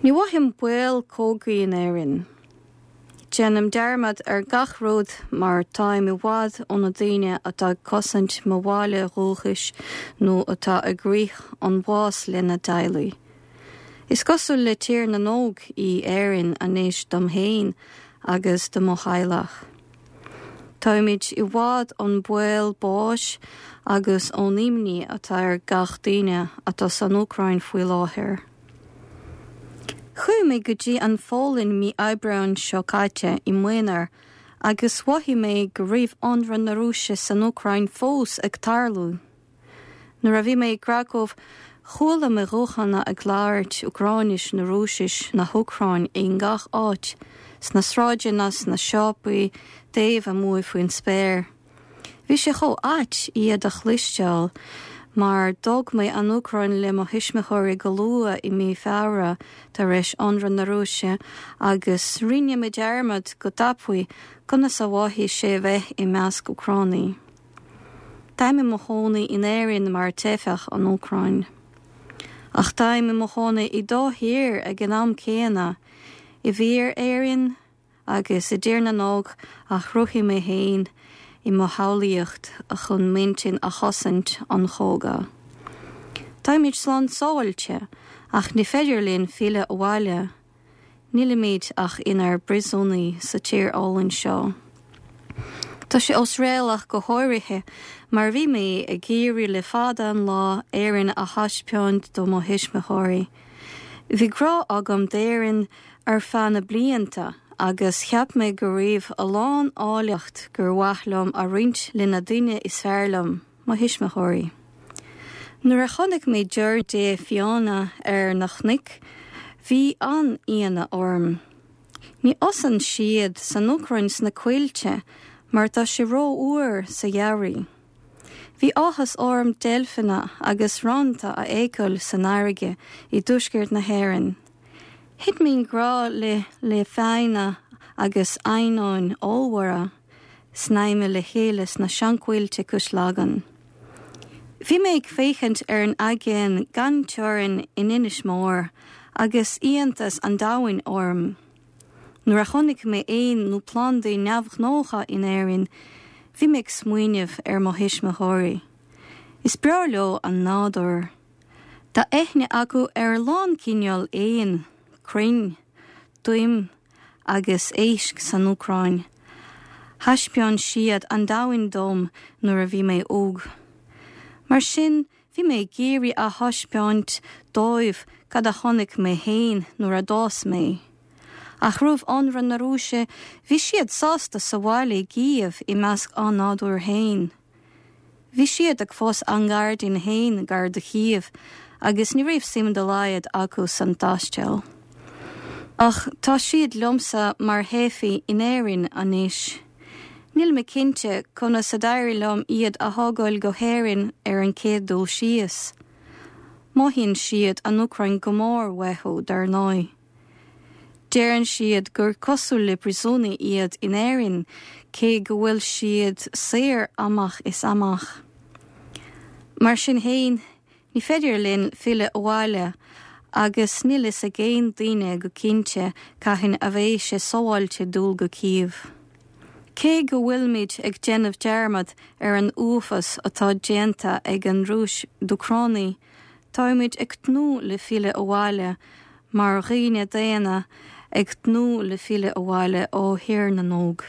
Ní mhothaím baol cogaidh in Éirinn. Déanaim dearmad ar gach rud mar táim i bhfad ó na daoine atá ag cosaint mo bhaile dhúchais nó atá ag rith an bhás lena dteaghlaigh. Is cosúil le Tír na nÓg í Éirinn anois dom féin agus do mo theaghlach. Táimid i bhfad ón baol báis agus ón imní atá ar gach duine atá san Úcráin faoi láthair. Chuaigh mé go dtí an Pholainn mí Aibreáin seo caite i m'aonar agus mhothaigh mé go raibh ionradh na Rúise san Úcráin fós ag tarlú. Nuair a bhí mé i gCracow chuala mé guthanna ag labhairt Úcráinis nó Rúisis na hÚcráin i ngach áit, sna sráideanna, sna siopaí, taobh amuigh faoin spéir. Bhí sé chomh ait iad a chloisteáil mar d'fhág mé an Úcráin le mo thuismitheoirí go luath i mí Feabhra tar éis ionradh na Rúise agus rinne mé dearmad go tapaidh conas a mhothaigh sé bheith i measc Úcránaigh. Táim i mo chónaí in Éirinn mar teifeach ón Úcráin. Ach táim i mo chónaí i dá thír ag an am céanna, i bhfíor Éirinn, agus i dTír na nÓg a chruthaigh mé féin i mo shamhlaíocht chun m'intinn a chosaint ón chogadh. Táimid slán sábháilte, ach ní féidir linn filleadh abhaile. Nílimid ach inár bpríosúnaigh sa tír álainn seo. Tá sé osréalach go háirithe mar bhí mé ag iarraidh le fada an lá Éirinn a thaispeáint do mo thuismitheoirí. Bhí grá agam d'Éirinn ar feadh na blianta agus cheap mé go raibh a lán áilleacht gur mhaith liom a roinnt le na daoine is fearr liom, mo thuismitheoirí. Nuair a chonaic mé giorria fiáine ar na cnoic, bhí an-ionadh orm. Ní fhásann siad san Úcráin sna coillte mar tá sé rófhuar sa gheimhreadh. Bhí áthas orm deilfeanna agus rannta a fheiceáil san fharraige i dtuaisceart na hÉireann. Thit mé i ngrá le le fianna agus eidhneáin ollmhóra snaidhmthe le chéile sna seanchoillte cois Lagan. Bhí mé ag féachaint ar an aigéan gan teorainn in Inis Mór agus iontas an domhain orm. Nuair a chonaic mé éin nó plandaí neamhghnácha in Éirinn, bhí mé ag smaoineamh ar mo thuismitheoirí. Is breá leo an nádúr. Tá aithne acu ar a lán cineál éan, crainn, toim agus éisc san Úcráin. Thaispeáin siad an domhan dom nuair a bhí mé óg. Mar sin, Bhí mé ag iarraidh a thaispeáint dóibh cad a chonaic mé féin nuair a d'fhás mé. Ach roimh ionradh na Rúise, bhí siad sásta sa bhaile i gCív i measc a nádúir féin. Bhí siad ag fás a ngairdín féin gar do Chív agus ní raibh suim dá laghad acu san taisteal. Ach tá siad liomsa mar theifigh in Éirinn anois. Níl mé cinnte conas a d'éirigh liom iad a thógáil go hÉirinn ar an chéad dul síos. Mothaíonn siad an Úcráin go mór uathu, dar ndóigh. Deireann siad gur cosúil le príosúnaigh iad in Éirinn cé go bhfuil siad saor amach is amach. Mar sin féin, Ní féidir linn filleadh abhaile agus níl fhios ag aon duine go cinnte cathain a bheidh sé sábháilte dul go Cív. Cé go bhfuilimid ag déanamh dearmad ar an uafás atá déanta ag an Rúis d'Úcránaigh, táimid ag tnúth le filleadh abhaile mar dhaoine daonna ag tnúth le filleadh abhaile ó Thír na nÓg.